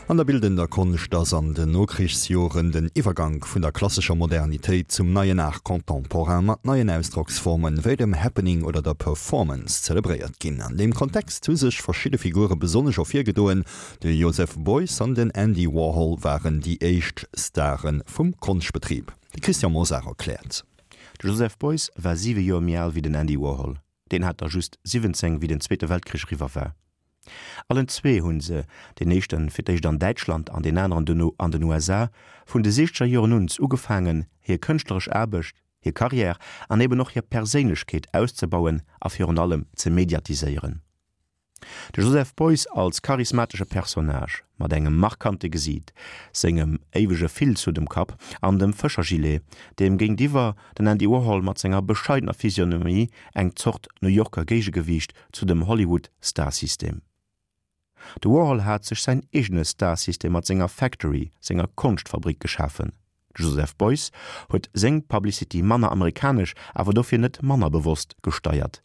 An der bildender Konscht ass an den Nokrichsjoren den Iwwergank vun der klassescher Modernitéit zum neien Art contemporain mat neien Ausdrocksformen wéi dem Happening oder der Performance zelebréiert ginn. An deem Kontext hu sech verschidde Figure besonnesch ervirgedoen, De Joseph Beuys an den Andy Warhol waren déi éischt Stare vum Konschtbetrib. De Christian Mosar erkläert. De Joseph Beuys war siwe Joer méi al wéi den Andy Warhol. Deen hat der just 17, wéi den Zweete Weltkrich eriwwer war. Allen zwee hu se, deen éischte fir d'éischt an Däitschland an deen aneren duerno an den USA, vun de siechzeger Joren un ugefaangen, hir kënschtleresch Aarbecht, hir Karriär an eben och hir Perséinlechkeet auszebauen a virun allem ze mediatiséieren. De Joseph Beuys als charismatesche Personnage, mat engem markante Gesiit, sengem éiwege Filzhutt um Kapp an dem Fëschergilet, deem géintiwwer den Andy Warhol mat senger bescheidener Physionomie, eng Zort New Yorker Géigegewiicht zu dem Hollywood-Starsystem. De Warhol hat sech säin eegene Starsystem mat senger Factory, senger Konschtfabrik geschafen. De Joseph Beuys huet seng Publicity manner amerikanesch, awer dofir net manner bewosst gesteiert.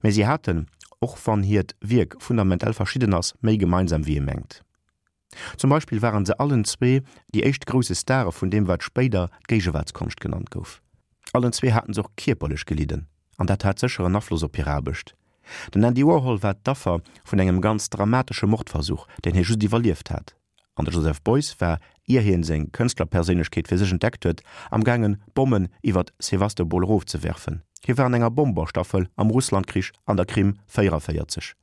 Mä si haten, och wann hiert Wierk fundamentel verschidden ass, méi gemeinsam wéi ee mengt. Zum Beispill waren se allen zwee déi éischt grousse Stare vun deem wat spéider d'Géigewaartskonscht genannt gouf. Allen zwee haten se och kierperlech gelidden, an dat hat sécher en Afloss op hir Aarbecht. Den Andy Warhol war d'Affer vun engem ganz dramatesche Mordversuch, deen hie just iwwerlieft hat. An de Joseph Beuys war, ier hien seng Kënschtlerperséinlechkeet fir sech entdeckt huet, am gaangen Bommen iwwert Sewastopol erofzewerfen. Hie war an enger Bomberstaffel am Russlandkrich an der Krim 44.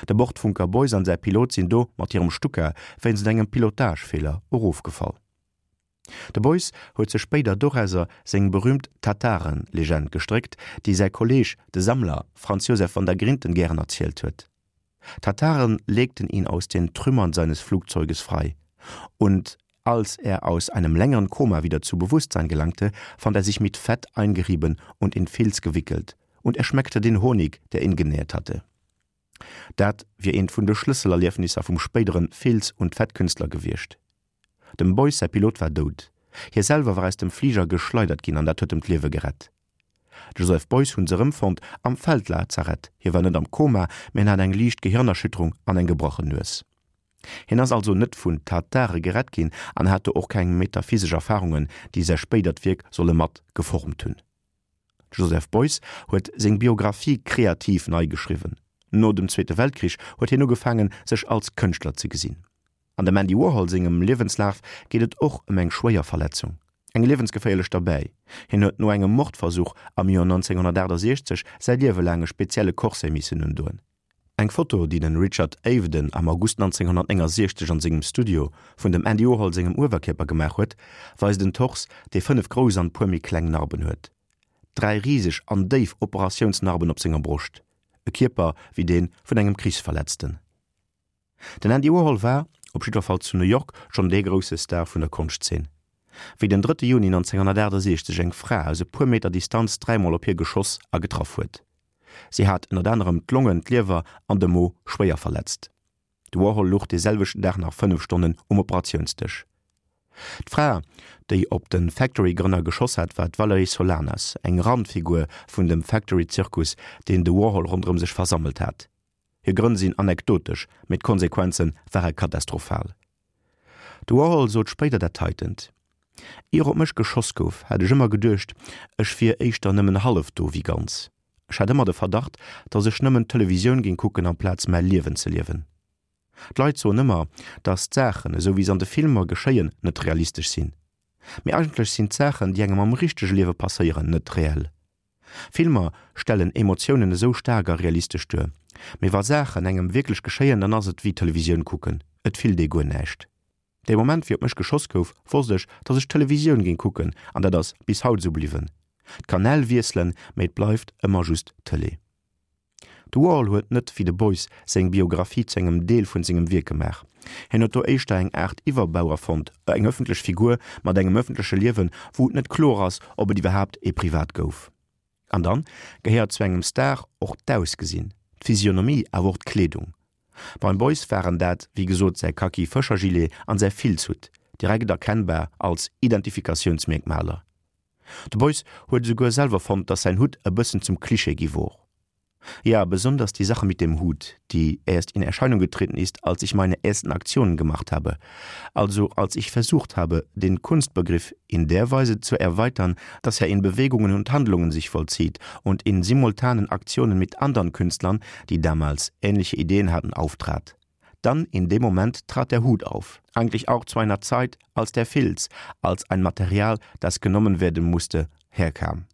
De Bordfunker Beuys an säi Pilot sinn do mat hirem Stuka wéinst engem Pilotagefeeler erofgefall. De Beuys huet sech spéider dorauser seng berüümt Tataren-Legend gestréckt, déi säi Kolleeg, de Sammler Franz Josef van der Grinten gären erzielt huet. Tataren legten ihn aus den Trümmern seines Flugzeuges frei und als er aus einem längeren Koma wieder zu Bewusstsein gelangte, fand er sich mit Fett eingerieben und in Filz gewickelt und er schmeckte den Honig, der ihn genährt hatte. Dat wier eent vun de Schlësselerliefnisser vum spéideren Filz und Fettkünstler gewiescht. Dem Beuys säi Pilot war dout, hie selwer war aus dem Fliger geschleidert ginn an dat huet em d'Liewe gerett. De Joseph Beuys hunn se erëmfonnt am Feldlazarett, hie war net am Koma, mee en hat eng liicht Gehirnerschütterung an eng gebrachen Nues. Hien ass also net vun Tatare gerett ginn an hat do och keng metaphysesch Erfarungen, déi säi spéidert Wierk solle mat geformt hunn. De Joseph Beuys huet seng Biographie kreativ nei geschriwwen. No dem Zweete Weltkrich huet hien ugefaangen, sech als Kënschtler ze gesinn. An dem Andy Warhol sengem Liewenslaf geet et och ëm eng schwéier Verletzung, eng liewensgeféierlech derbäi. Hien huet no engem Mordversuch am Joer 1968 säi Liewe laang e spezielle Corset missen undoen. Eng Foto, déi den Richard Avedon am August 1969 an sengem Studio vun dem Andy Warhol sengem Uewerkierper gemaach huet, weist en Tors, dee 5 grouss an puer méi kleng Narben huet. Dräi riseg an déif Operatiounsnarben op senger Broscht. E Kierper wéi dee vun engem Krichsverletzten. Den Andy Warhol war, op jiddwer Fall zu New York, schonn dee grousse Star vun der Konschtzeen. Wéi den drëtte Juni 1968 eng Fra aus e puer Meter Distanz dräimol op hie geschoss a getraff huet. Si hat ënnert anerem d'Longen, d'Liewer an de Mo schwéier verletzt. De Warhol luch dee selwechten Dag nach 5 Stonnen um Operatiounsdësch. D'Fra, déi op de Factory-Grënner geschoss hat, war d'Valerie Solanas, eng Randfigur vun dem Factory-Zirkus, deen de Warhol ronderëm sech versammelt hat. Hir Grënn sinn anekdotesch, mee d'Konsequenze ware katastrophal. De Warhol sot spéider dat heitent, Ier op mech geschoss gouf, hat ech ëmmer geduecht, ech wier éischter nëmmen hallef do wéi ganz. Ech hat ëmmer de Verdacht, datt ech nëmmen Televisioun géing kucken amplaz mäi Liewen ze liewen. D'Leit soen ëmmer, datt d'Saachen, esou wéi se an de Filmer geschéien, net realistesch sinn. Mee eigentlech sinn d'Saachen, déi engem am richtege Liewe passéieren, net reell. Filmer stellen Emotiounen esou staark a realistesch duer, mee wa Saachen engem wierklech geschéien, dann ass et wéi Televisioun kucken, et fillt ee guer näischt. Dee Moment wéi op mech geschoss gouf, wosst ech, dass ech Televisioun géing kucken an dat ass bis haut esou bliwwen. D'Kanäl wiesselen, mee et bleift ëmmer just Tëlee. De Warhol huet net wéi de Beuys seng Biographie zu engem Deel vun sengem Wierk gemaach. Hien huet do éischter eng Aart Iwwerbau erfonnt, eng ëffentlech Figur mat engem ëffentleche Liewen, wou et net kloer ass, ob et iwwerhaapt ee privat gouf. An dann gehéiert zu engem Star och d'Ausgesinn, d'Physionomie, awer och d'Kleedung. Beim Beuys waren dat wéi gesot säi Kaki Fëschergilet an säi Filzhutt, direkt erkennbar als Identifikatiounsmierkmaler. De Beuys huet esouguer selwer fonnt, datt säin Hutt e bëssen zum Klischee gi wor. Ja, besonders die Sache mit dem Hut, die erst in Erscheinung getreten ist, als ich meine ersten Aktionen gemacht habe, also als ich versucht habe, den Kunstbegriff in der Weise zu erweitern, dass er in Bewegungen und Handlungen sich vollzieht und in simultanen Aktionen mit anderen Künstlern, die damals ähnliche Ideen hatten, auftrat. Dann in dem Moment trat der Hut auf, eigentlich auch zu einer Zeit, als der Filz, als ein Material, das genommen werden musste, herkam.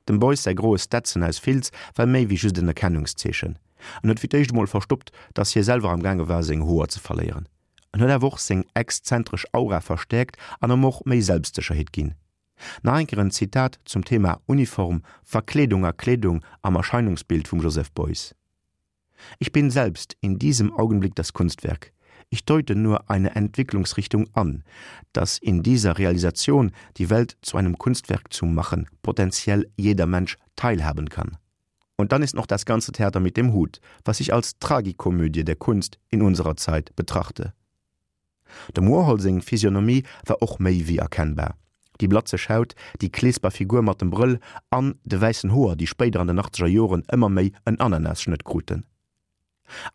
Dem Beuys säi groe Stetson aus Filz war méi wéi just en Erkennungszeechen. En huet fir d'éischt emol verstoppt, dass hie selwer am gaange war seng Hoer ze verléieren. En huet awer och seng exzentresch Aura verstäerkt an em och méi Selbstsécherheet ginn. Nach eng Kéier en Zitat zum Thema Uniform, Verkleedung a Kleedung am Erscheinungsbild vum Joseph Beuys. Ich bin selbst in diesem Augenblick das Kunstwerk. Ich deute nur eine Entwicklungsrichtung an, dass in dieser Realisation die Welt zu einem Kunstwerk zu machen potenziell jeder Mensch teilhaben kann. Und dann ist noch das ganze Theater mit dem Hut, was ich als Tragikomödie der Kunst in unserer Zeit betrachte. Dem Warhol seng Physionomie war och méi wéi erkennbar, déi blatzeg Haut, déi kleesper Figur mat dem Brëll an de wäissen Hoer, déi spéider an den achtzeger Joren ëmmer méi en Ananasschnëtt kruten.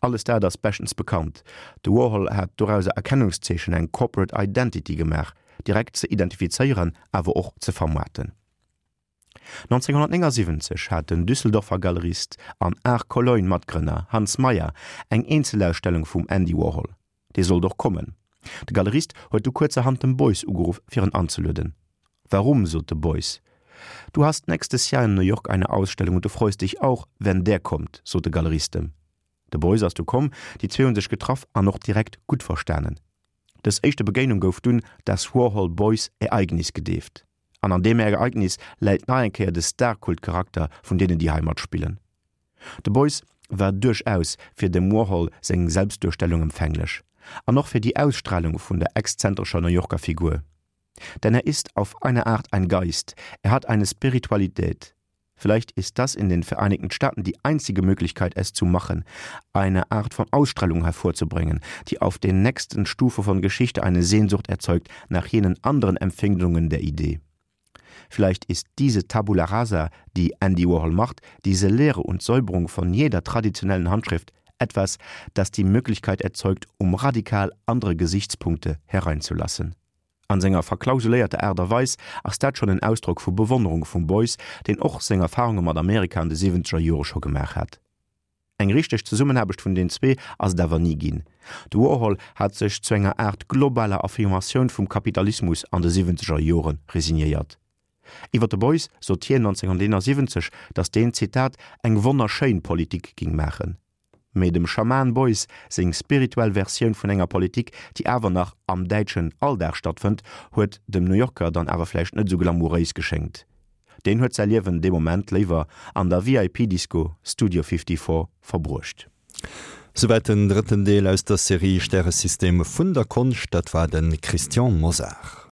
Alles dat ass beschtens bekannt. De Warhol hat dorauser Erkennungszeechen, eng Corporate Identity gemaach, direkt ze identifizéieren, awer och ze vermaarten. 1979 hat den Düsseldorfer Galerist an Art Cologne Matgrënner Hans Mayer eng Eenzelausstellung vum Andy Warhol. Dee sollt och kommen. De Galerist huet du kuerzerhand dem Beuys ugeruff fir en anzelueden. Warum, sot de Beuys. Du hast nächstes Jahr in New York eine Ausstellung und du freust dich auch, wenn der kommt, sot de Galerist em. De Beuys ass du komm, déi zwee hunn sech getraff an och direkt gutt verstanen. Dës éischte Begéinung gouf dunn das Warhol-Beuys-Ereignis gedeeft. An an deem Ereignis läit nach eng Kéier de Star-Kult-Charakter vun deenen, déi hei matspillen. De Beuys war duerchaus fir dem Warhol seng Selbstduerstellung empfänglech an och fir déi Ausstralung vun der exzentrescher New Yorker Figur. Denn er ist auf eine Art ein Geist, er hat eine Spiritualität. Vielleicht ist das in den Vereinigten Staaten die einzige Möglichkeit, es zu machen, eine Art von Ausstrahlung hervorzubringen, die auf den nächsten Stufe von Geschichte eine Sehnsucht erzeugt nach jenen anderen Empfindungen der Idee. Vielleicht ist diese Tabula rasa, die Andy Warhol macht, diese Lehre und Säuberung von jeder traditionellen Handschrift etwas, das die Möglichkeit erzeugt, um radikal andere Gesichtspunkte hereinzulassen. An senger verklausuléierter Aart a Weis ass dat schonn en Ausdrock vu Bewonnerung vum Beuys, deen och seng Erfarunge mat Amerika an de siwwenzeger Jore scho gemaach hat. Eng richteg Zesummenaarbecht vun den zwee ass et awer ni ginn. De Warhol hat sech zu enger Aart globaler Affirmatioun vum Kapitalismus an de siwwenzeger Jore resignéiert. Iwwer de Beuys sot hien 1971, datt deen, Zitat, eng wonnerschéin Politik ging maachen. Mee dem Schaman Beuys seng spirituell Versioun vun enger Politik, déi awer nach am däitschen Alldag stattfënnt, huet dem New Yorker dann awer vläicht net esou glamouréis geschéngt. Deen huet säi Liewen dee Moment léiwer an der VIP-Disco Studio 54 verbruecht. Souwäit den drëtten Deel aus der Serie Stäresystem vun der Konscht. Dat war de Christian Mosar.